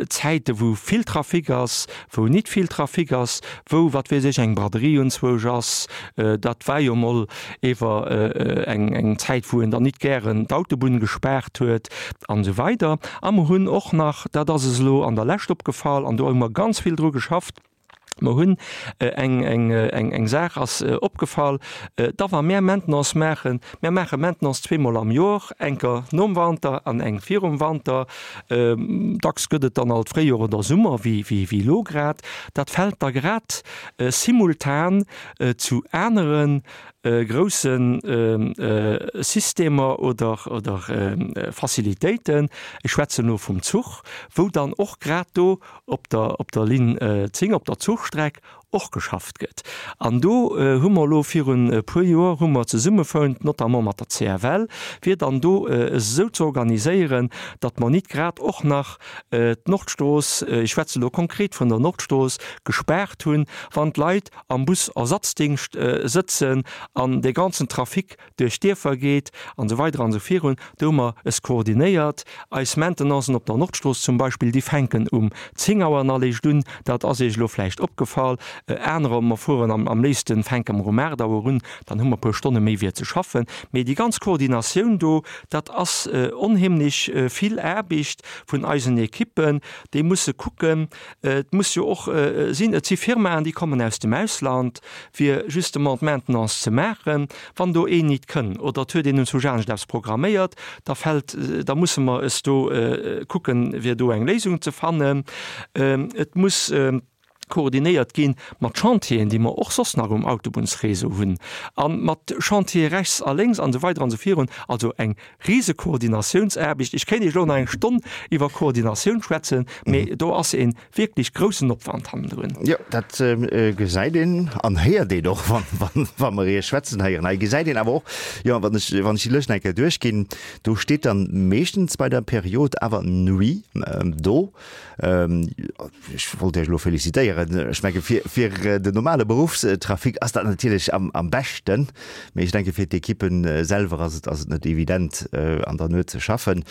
Zäite wou vill Trafic ass, wou nit vill Trafic ass, wou, wat weess ech, eng Braderie unzwousch ass. Dat war jo mol ewer eng Zäit, wou een dann nit gären d'Autobunn gespaart huet an esou weider. A mer hunn och nach, dat ass es elo an der Lescht opgefall, an do hu mer ganz vill dru geschafft, mer hunn eng, eng, eng, eng Saach ass opgefall, da wa mär Maintenance maachen, mär maache Maintenance zweemol am Jor, enker nom Wanter an eng virum Wanter, dacks gëtt et dann alt Fréijor oder Summer, wéi, wéi, wéi elo grad, dat fält da grad simultan zu anere grousse Systemer oder Facilitéiten, ech schwätzen elo vum Zuch, wou dann och grad do op der Linn 10, op der Zuchstreck och geschafft gëtt. An do hu mer elo virun e puer Joer hu mer zesummefount, notamment mat der CFL, fir dann do esou ze organiséieren, datt mer nit grad och nach d'Nordstrooss, ech schwätze elo konkret vun der Nordstrooss, gespaart hunn, wann d'Leit am Bus-Ersatzdingscht sëtzen an dee ganzen Trafic duerch d'Dierfer geet an esou weider an esou virun. Do hu mer es koordinéiert. Eis Maintenancen op der Nordstrooss zum Beispill, déi fänken um 10 Auer an eréischt un. Dat ass Iech elo vläicht opgefall. Anerer, mer fueren am am léifsten fänke mer um 8 Auer un, dann hu mer e puer Stonne méi fir ze schaffen. Mee déi ganz Koordinatioun do, dat ass onheemlech vill Aarbecht vun eisen Ekippen, déi musse kucken, et muss jo och sinn, et si Firmaen, déi kommen aus dem Ausland, fir justement d'Maintenance ze maachen. Wann do een nit kënn oder et huet een un zu anescht eppes programméiert, da fält, da musse mer es do kucken, fir do eng Léisung ze fannen. Et muss koordinéiert gi mat Chantieren, déi mer och soss nach um Autobunnsréseau hunn, a mat Chantiere rechts a lénks an esou weider an esou virun. Also eng rise Koordinatiounsaarbecht. Ech kéint Iech elo nach eng Stonn iwwer Koordinatioun schwätzen, mee do ass e wierklech groussen Opwand hannendrun. Jo, dat gesäit een an héiert een och, wa mer Iech schwätzen héieren. Hei gesäit een awer och, jo, wann ech, wann ech déi Lëscht nach eng Kéier duerchginn, do steet dann meeschtens bei der Period awer Nuit do. Ech wollt Iech elo felicitéieren. Ech menge fir, fir den normale Beruffstrafic ass dat natierlech am, am beschten. Mee ech denke fir d'Ekippen selwer ass et, ass et net evident an der Nuet ze schaffen.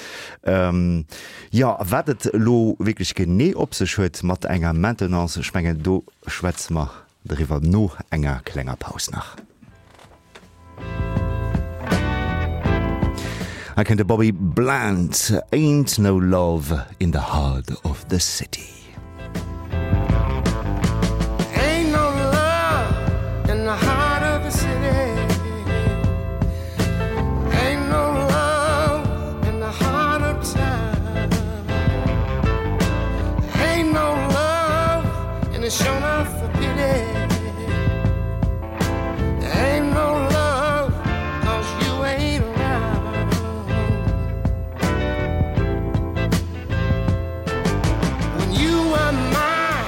Jo, a wat et elo wierklech genee op sech huet mat enger Maintenance, ech mengen do schwätze mer driwwer no enger klenger Paus nach. Hei kënnt de Bobby Bland, Ain't No Love in the Heart of the City. Ain't no love in the heart of the city. Ain't no love in the heart of town. Ain't no love and it's sure enough a pity. Ain't no love cause you ain't around. When you were mine,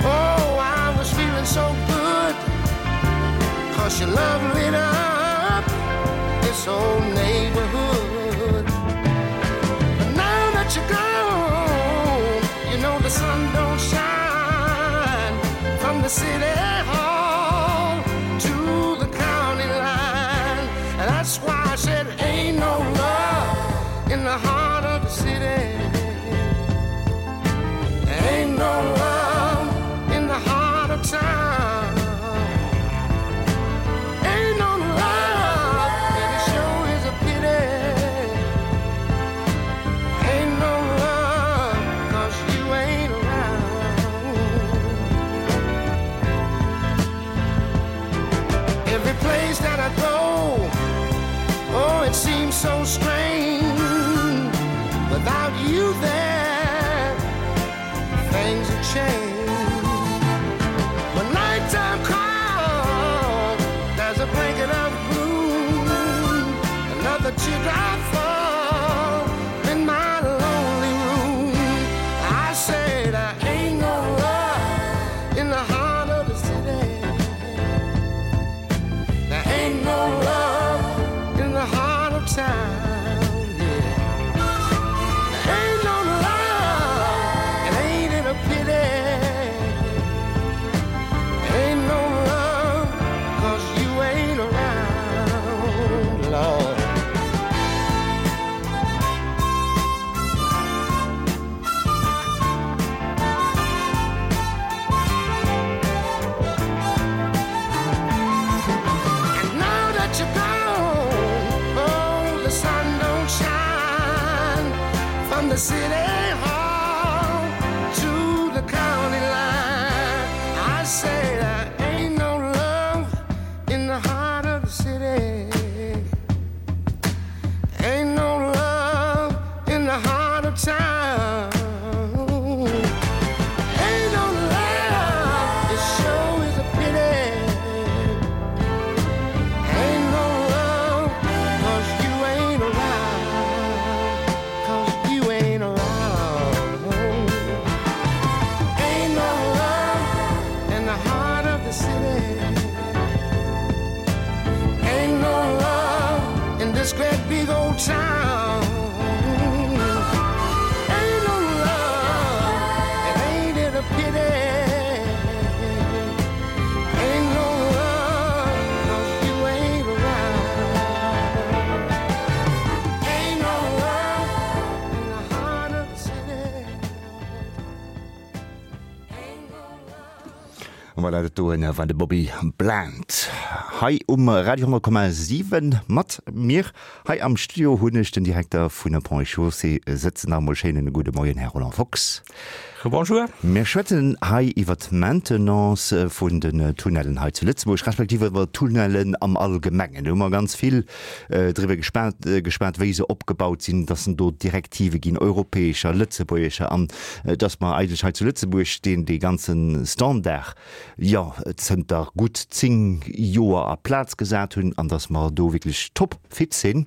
oh, I was feeling so good. Cause your love lit up this old neighborhood. But now that you're gone, you know the sun don't shine from the city hall to the county line. And that's why I said, ain't no love in the heart of the city. Ain't no love in the heart of town. Ain't no love, and it sure is a pity. Ain't no love, cause you ain't around. Every place that I go, oh, it seems so strange. Without you there, things have changed. When nighttime comes, there's a blanket of gloom, another teardrop fall in my lonely room. I say there ain't no love in the heart of the city. There ain't no love in the heart of town. Yeah. There ain't no love, and ain't it a pity? Ain't no love, cause you ain't around, Lord. And now that you're gone, oh, the sun don't shine from the city hall to the county line. I say there ain't no love in the heart of the city. Ain't no love in the heart of town. Ain't no love, it sure is a pity. Ain't no love, cause you ain't around. Cause you ain't around. Ain't no love in the heart of the city. Ain't no love in this great big old town. Ain't no love, and ain't it a pity? Ain't no love, cause you ain't around. Ain't no love in the heart of the city. Ain't no love. Voilà, dat doen war de Bobby Bland hei um Radio 10,7 mat mir. Hei am Studio hunn ech den Direkter vun Ponts et Chaussées sëtzen. Nach emol schéinen gudde Moien, Här Roland Fox. Rebonjour. Mir schwätzen hei iwwer d'Maintenance vun den Tunnellen hei zu Lëtzebuerg, respektiv iwwer d'Tunnellen am Allgemengen. Do hu mer ganz vill driwwer geschwat, wéi se opgebaut sinn, dass en do Direktive ginn, europäescher, lëtzebuergescher, an dass mer eigentlech hei zu Lëtzebuerg deen dee ganze Standard, jo, zënter gutt 10 Joer a Plaz gesat hunn an dass mer do wierklech top fit sinn.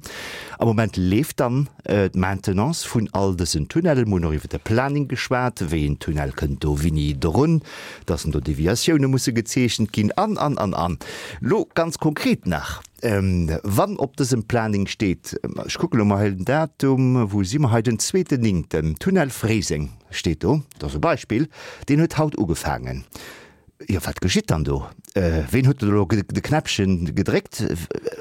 Am Moment leeft dann d'Maintenance vun all dësen Tunnellen. Mir hunn och iwwer de Planning geschwat, wéi een Tunnel kënnt do wéini drun, dass do Deviatioune musse gezeechent ginn an, an, an, an. Lo ganz konkret nach, Wann op dësem Planning steet, ech kucke lo mol hei den Datum, wou si mer hei, den zweeten Néngten, Tunnel Fréiseng steet do, dat ass e Beispill, deen huet haut ugefaangen. Jo, wat geschitt dann do? Ween huet elo de Knäppchen gedréckt?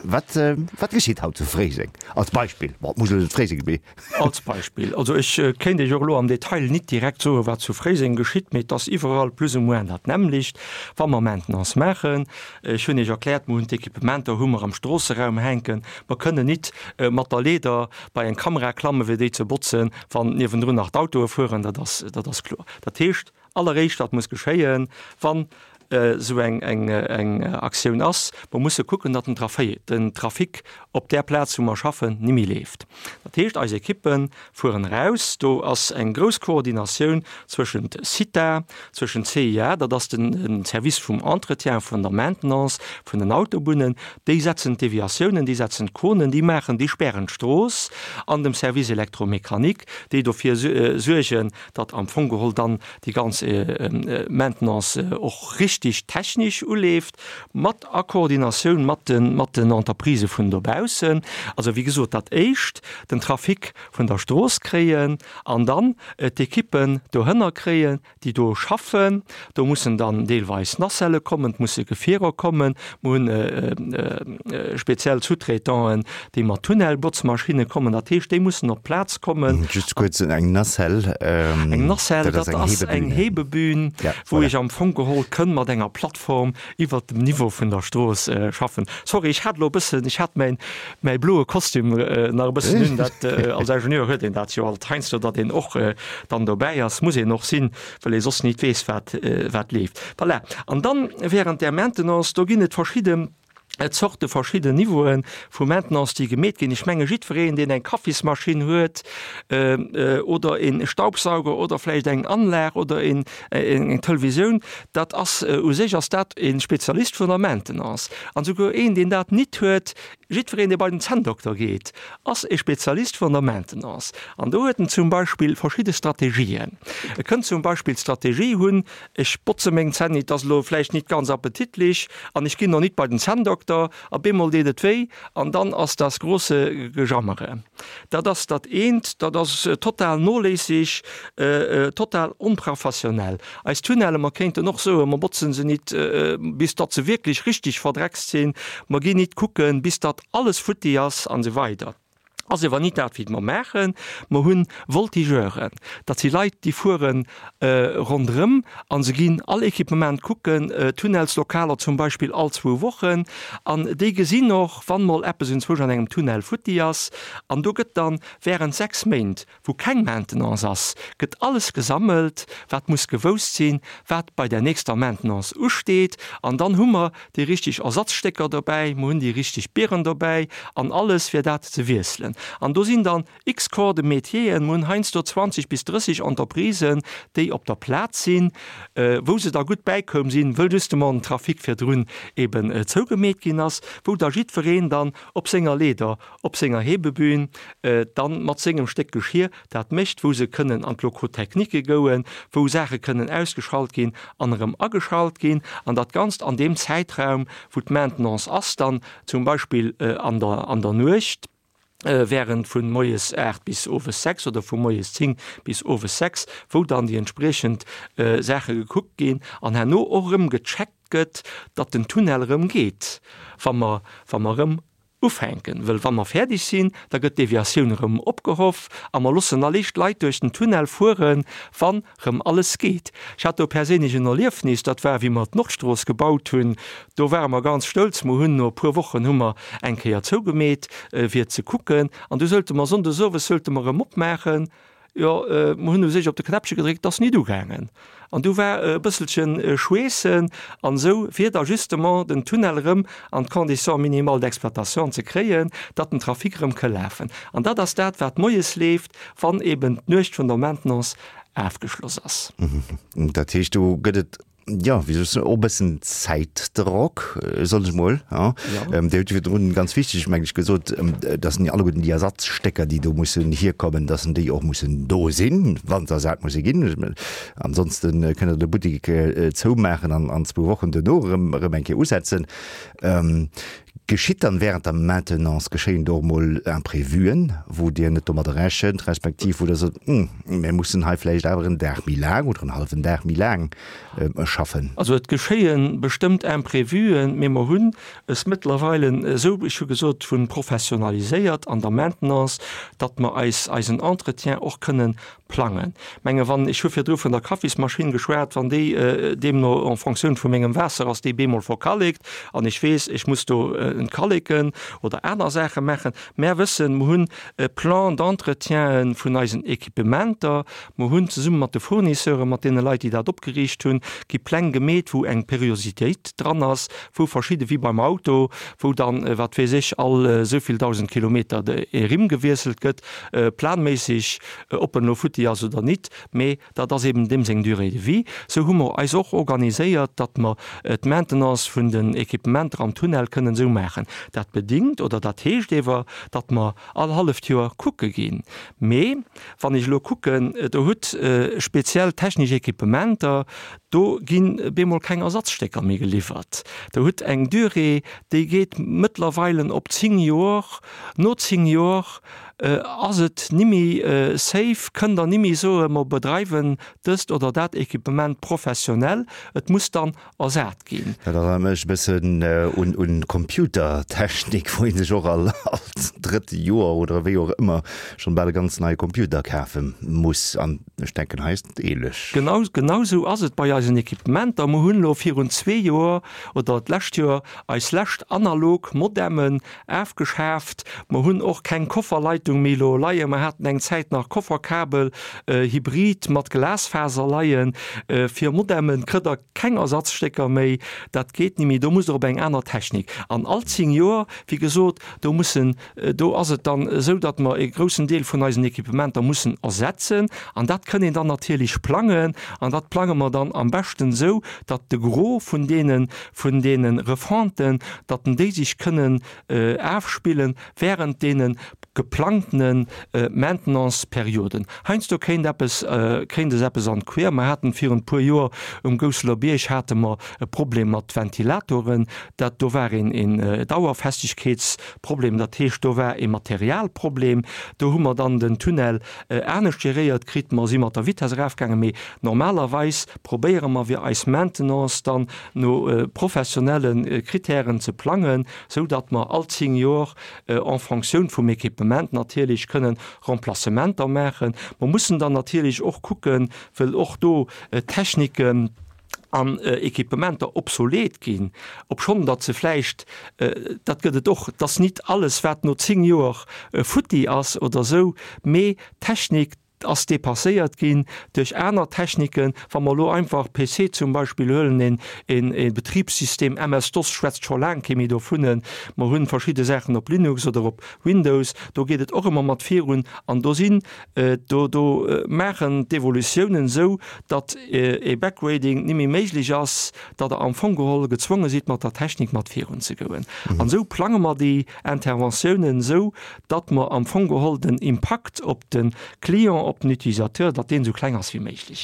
Wat, wat geschitt haut zu Fréiseng? Als Beispill. Bon, et muss elo net Fréiseng sinn, mee. Als Beispill. Also ech kéint Iech och elo am Detail nit direkt soen, wat zu Fréiseng geschitt, mee et ass iwwerall plus ou moins dat nämmlecht, wa mer Maintenance maachen. Ech hunn Iech erkläert, mer hunn d'Equipementer hu mer am Stroosseraum hänken. Mer kënnen nit mat der Leeder bei eng Kamera klammen, fir déi ze botzen, wann niewendrun nach d'Autoe fueren. Dat ass, dat ass kloer. Dat heescht, Alleréischt wat muss geschéien, wann esou eng Aktioun ass, mer musse kucken, datt den Trafic op där Plaz, wou mer schaffen, ni méi leeft. Dat heescht, eis Ekippe fueren eraus. Do ass eng grouss Koordinatioun zwëschent CITA, zwëschent CIA, dat ass de Service vum Entretien, vun der Maintenance vun den Autobunnen, déi setzen d'Deviatiounen, déi setzen d'Konen, déi maachen, déi spären d'Strooss, an dem Service électromécanique, déi dofir suergen, datt am Fong geholl dann déi ganz Maintenance och richtig technisch uleeft, mat a Koordinatioun mat de mat den Entreprisë vun dobaussen. Also wéi gesot, dat Éischt den Trafic vun der Strooss kréien an dann d'Ekippen dohënner kréien, déi do schaffen. Do mussen dann deelweis Nacellë kommen, et musse Gefierer kommen. Mer hunn speziell Sous-traitanten, déi mat Tunnelbotzmaschinne kommen. Dat heescht, déi mussen op d'Plaz kommen. Just kuerz, eng Nacelle, Eng Nacelle, dat ass eng Hebebühn, wou ech am Fong geholl kënn mat enger Plattform iwwert dem Niveau vun der Strooss schaffen. Sorry, ech hat elo e bëssen, ech hat mäin, mäi bloe Kostüm nach e bëssen un. Dat, als Ingenieur huet een dat jo alt heiansdo, datt een och dann dobäi ass, muss een och sinn, well ee soss nit weess, wat, wat leeft. Voilà. An dann während där Maintenance, do ginn et verschidde Zorte, verschidden Niveaue vu Maintenance, déi gemeet ginn. Ech menge jiddwereen, deen eng Kaffismaschinn huet oder e Staubsauger oder vläicht eng Anlag oder eng Televisioun, dat ass u sech ass dat e Spezialist vun der Maintenance. An souguer een, deen dat nit huet, jiddwereen, dee bei den Zänndokter geet, ass e Spezialist vun der Maintenance. An do huet en zum Beispill verschidde Strategien. E kënnt zum Beispill d'Strategie hunn, Ech botze meng Zänn nit, ass elo vläicht nit ganz appetitlich, an ech ginn och nit bei den Zänndokter, a bemol deet et wéi, an dann ass das große Gejammere. Dat ass dat eent, dat ass total noléisseg, total onprofessionell. Eis Tunnelle, mer kéinten och soen, mer botzen se nit, bis datt se wierklech richtig verdreckst sinn, mer ginn nit kucken, bis datt alles futti ass, an esou weider. Ass ewer nit dat wéi mer maachen. Mer hunn Voltigeuren, dat si Leit déi fuere ronderëm a se ginn all Equipement kucken, Tunnelslokaler zum Beispill all zwou Wochen, an déi gesinn och wann mol eppes enzwousch an engem Tunnel futti ass. An do gëtt dann während 6 Méint wou keng Maintenance ass, gëtt alles gesammelt, wat muss gewousst sinn, wat bei der nächster Maintenance usteet. An dann hu mer déi richtig Ersatzstécker dobäi, mer hunn déi richtig Bieren dobäi an alles, fir dat ze wiesselen. An do sinn dann x Corps de métieren, mer hunn heiansdo 20 bis 30 Entreprisen, déi op der Plaz sinn, wou se da gutt bäikoum sinn, wëll justement den Trafic virdrun eben zougemeet ginn ass, wou da jiddwereen dann op senger Leeder op senger Hebebühn dann mat sengem Stéck Geschir dat mécht, wou se kënnen an d'Locaux techniques gouen, wou Saache kënnen ausgeschalt ginn an erëm ageschalt ginn, an dat Ganzt an deem Zäitraum, wou d'Maintenance ass, dann zum Beispill an der an der Nuecht, während vu moies 8 bis owes 6 oder vu moies 10 bis owes 6, wou dann déi entspriechend Saache gekuckt ginn an herno och erëm gecheckt gëtt, datt den Tunnel erëm geet, wa mer wa mer erëm. Ufänken, wëll wa mer fäerdeg sinn, da gëtt d'Deviatioun erëm opgehoff a mer loossen allicht d'Leit duerch den Tunnel fueren, wann rëm alles geet. Ech hat do perséinlech en Erliefnis, dat war wéi mer d'Nordstrooss gebaut hunn, do ware mer ganz stolz, mer hunn no e puer Wochen hu mer eng Kéier zougemeet fir ze kucken an du sollte mer sonndes owes sollte mer erëm opmaachen, Jo, mer hunn u sech op de Knäppche gedréckt, et ass nit ugaangen. An du war e bësselche Schweessen an esou, fir da justement den Tunnel erëm an d'Conditions minimales d'exploitation ze kréien, datt den Trafic erëm ka lafen. An dat ass dat, wat moies leeft, wann eben d'Nuecht vun der Maintenance afgeschloss ass. Dat heescht, do gëtt et Jo, wéi soll ech soen, och e bëssen Zäitdrock, soen ech mol. Dir hutt jo virdrun, ganz wichteg, meng ech, gesot, dass en alleguerten déi Ersatzstécker, déi do mussen hierkommen, dass en déi och mussen do sinn, wa se ersat musse ginn. Ansonste kënnt Der de Buttek zoumaachen an an zwou Wochen duerno erëm erëm eng Kéier usetzen. Geschitt dann während der Maintenance, geschéien do och mol Imprévuen, wou Dir net domadder rechent, respektiv wou Der sot, Hm, mir mussen hei vläicht awer en Dag méi laang oder en hallwen Dag méi laang schaffen? Also et geschéie bestëmmt Imprévuen, mee mer hunn es mëttlerweile esou, ech hu gesot, vu professionaliséiert an der Maintenance, datt mer eis eisen Entretien och kënnen plangen. Menge wann, ech hu virdru vun der Kaffismaschinn geschwat, wann déi deemno en Fonctioun vu mengem Waasser ass, déi bemol verkallekt an ech weess, ech muss do entkalleken oder aner Saache maachen. Mär wëssen, mer hunn e Plan d'entretien vun eisen Equipementer, mer hunn zesumme mat de Fournisseuren, mat deene Leit, déi dat opgeriicht hunn, gi Pläng gemeet, wou eng Periositéit dran ass, wou verschidde, wéi beim Auto, wou dann, wat weess ech, all esou vill 1.000 Kilometer e Rimm gewiesselt gëtt, planméisseg. Ob en elo futti ass oder nit, mee dat ass eben deem seng Durée de vie. Sou hu mer eis och organiséiert, datt mer d'Maintenance vun den Equipementer am Tunnel kënnen esou maachen. Dat bedingt oder dat heescht ewer, datt mer all halleft Joer kucke ginn. Mee wann ech elo kucken, Der hutt speziell technesch Equipementer, do ginn bemol keng Ersatzstécker méi geliwwert. Der hutt eng Durée, déi geet mëttlerweilen op 10 Joer. No 10 Joer Ass et nimmi safe? Kënnt Der nimmi soen, mer bedreiwen dëst oder dat Equipement professionell, et muss dann ersat ginn? Dat erënnert mech e bëssen un Computertechnik, wou ee sech och all drëtt Joer oder wéi och ëmmer schonn bal e ganz neie Computer kafe muss. An ech denken, hei ass et ähnlech. Genau, genau esou ass et bei eisen Equipementer. Mer hunn elo virun zwee Joer oder d'lescht Joer eis lescht analog Modemmen Afgeschaaft. Mer hunn och keng Kofferleitung méi elo leien. Mer haten eng Zäit nach Kofferkabel, Hybrid mat Glasfaser leien. Fir Modemmen kritt der keng Ersatzstécker méi. Dat geet ni méi. Do musst der op eng aner Technik. An all 10 Joer, wéi gesot, do mussen, do ass et dann esou, datt mer e groussen Deel vun eisen Equipementer mussen ersetzen. An dat kënn een dann natierlech plangen. An dat plange mer dann am beschten esou, datt de Gros vun deene, vun deene Refonten, datt déi sech kënnen afspillen während deene geplangtene Maintenance-Perioden. Heiansdo kéint eppes, kéint es eppes an d'Quer. Mer haten virun e puer Joer um Gousseler Bierg hate mer e Problem mat Ventilatoren. Dat do war een een Dauerfestegkeetsproblem, dat heescht do war e Materialproblem. Do hu mer dann den Tunnel anescht geréiert kritt. Mer si mat der Vitess erafgaangen, mee normalerweis probéiere mer fir eis Maintenance dann no professionelle Kritären ze plangen, sou datt mer all 10 Jor en Fonctioun vum Equipement natierlech kënnen Remplacementer maachen. Mer mussen dann natierlech och kucken, wëll och do Techniken an Equipementer obsolet ginn, obschonn datt se vläicht, dat gëtt et och, et ass nit alles wat no 10 Joer futti ass oder esou, mee Technik, ass dépasséiert ginn duerch aner Techniken. Wa mer elo einfach PC zum Beispill huelen, een, een, ee Betribssystem, MS-DOS schwätzt scho laang kee méi dovun, mer hunn verschidde Saachen op Linux oder op Windows, do geet et och ëmmer mat virun an do sinn, do, do maachen d'Evolutiounen esou, datt ee Backgrading ni méi méiglech ass, datt Der am Fong geholl gezwonge sidd mat der Technik mat virun ze goen. An esou plange mer déi Interventiounen esou, datt mer am Fong geholl den Impakt op de Client, op den Utilisateur, datt deen esou kleng ass wéi méiglech.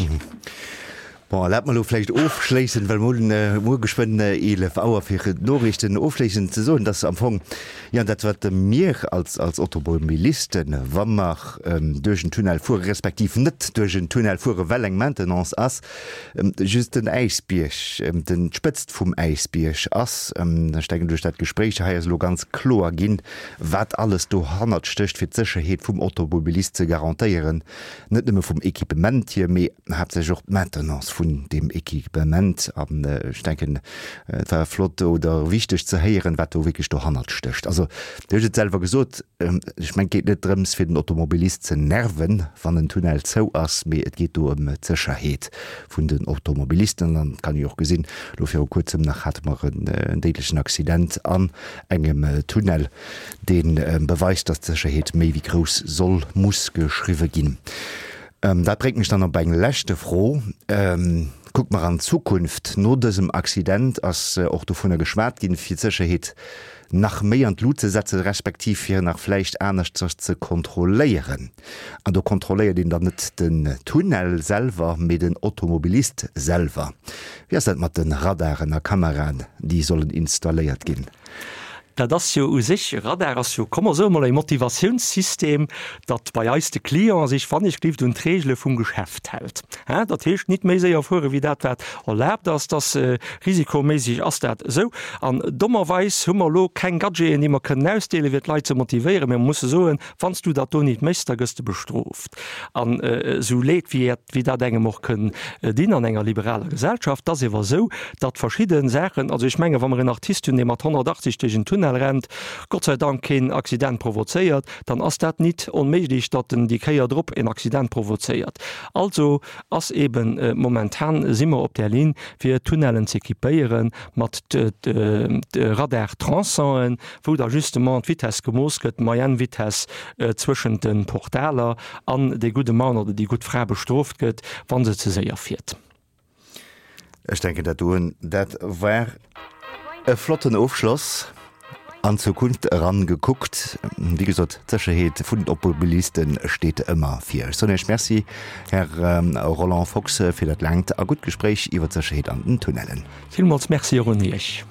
Bon, erlaabt mer elo vläicht ofschléissend, well mer hunn muer geschwënn 11 Auer fir d'Noriichten, ofschléissend ze soen, dass am Fong, jo, dat wat mir als, als Automobilisten, wa mer duerch en Tunnel fuere respektiv net duerch en Tunnel fuere well eng Maintenance ass, just den Äisbierg, den, d'Spëtzt vum Äisbierg ass. Ech denken, duerch dat Gespréich hei ass elo ganz kloer ginn, wat alles dohannert stécht, fir d'Sécherheet vum Automobilist ze garantéieren. Net nëmme vum Equipement hier, mee haaptsächlech och d'Maintenance vun deem Equipement. An ech denken, et war flott oder wichteg ze héieren, wat do wierklech dohannert stécht. Also, Dir hutt et selwer gesot, ech mengen, et geet net drëms, fir den Automobilist ze nerven, wann en Tunnel zou ass, mee et geet do ëm d'Sécherheet vun den Automobilisten. An et kann ee jo och gesinn, elo viru Kuerzem nach hate mer en déidlechen Accident an engem Tunnel. dee beweist, dass d'Sécherheet méi wéi grouss soll, muss geschriwwe ginn. Dat bréngt mech dann op eng leschte Fro. Kucke mer an d'Zukunft. No dësem Accident ass och dovunner geschwat ginn, fir d'Sécherheet nach méi an d'Lut ze setzen, respektiv fir nach vläicht aneschters ze kontrolléieren. An do kontrolléiert een dann net den Tunnel selwer, mee den Automobilist selwer. Wéi ass dat mat de Radaren a Kameraen, déi sollen installéiert ginn? Dat ass jo u sech, e Radar ass jo, komm mer soe mol, e Motivatiounssystem, datt bei eis de Client sech wann ech glift un d'Regele vum Geschäft hält. Hein, dat heescht nit méi séier fuere wéi dat wat erlaabt ass, dass risikoméisseg ass dat esou. An dommerweis hu mer elo keng Gadgeten déi mer kënnen ausdeelen, fir d'Leit ze motivéieren, mä mer musse soen, wann s du dat do nit méchs, da gëss de bestrooft. An esou leed wéi wéi dat engem och kënn dinn an enger liberaler Gesellschaft, et ass ewer esou, datt verschidde Saachen, also ech menge wa mer en Artist hunn, dee mat 180 duerch en Tunnel rennt, Gott sei Dank keen Accident provozéiert, dann ass dat nit onméiglech, datt en déi Kéier drop en Accident provozéiert. Also ass eben momentan si mer op där Linn, fir Tunnellen z'équipéiere mat Radar-Tronçonen, wou da justement d'Vitesse gemooss gëtt, d'Moyenne Vitesse zwëschent de Portaler, an dee gudde Mann oder déi gutt Fra bestrooft gëtt, wa se ze séier fiert. Ech denken, dat doen, dat war e flotten Ofschloss. An d'Zukunft eran gekuckt. Wéi gesot, d'Sécherheet vun den Automobiliste steet ëmmer vir. Ech soen Iech Merci, Här Roland Fox, fir dat laangt a gutt Gespréich iwwer d'Sécherheet an den Tunnellen. Villmools Merci och un Iech.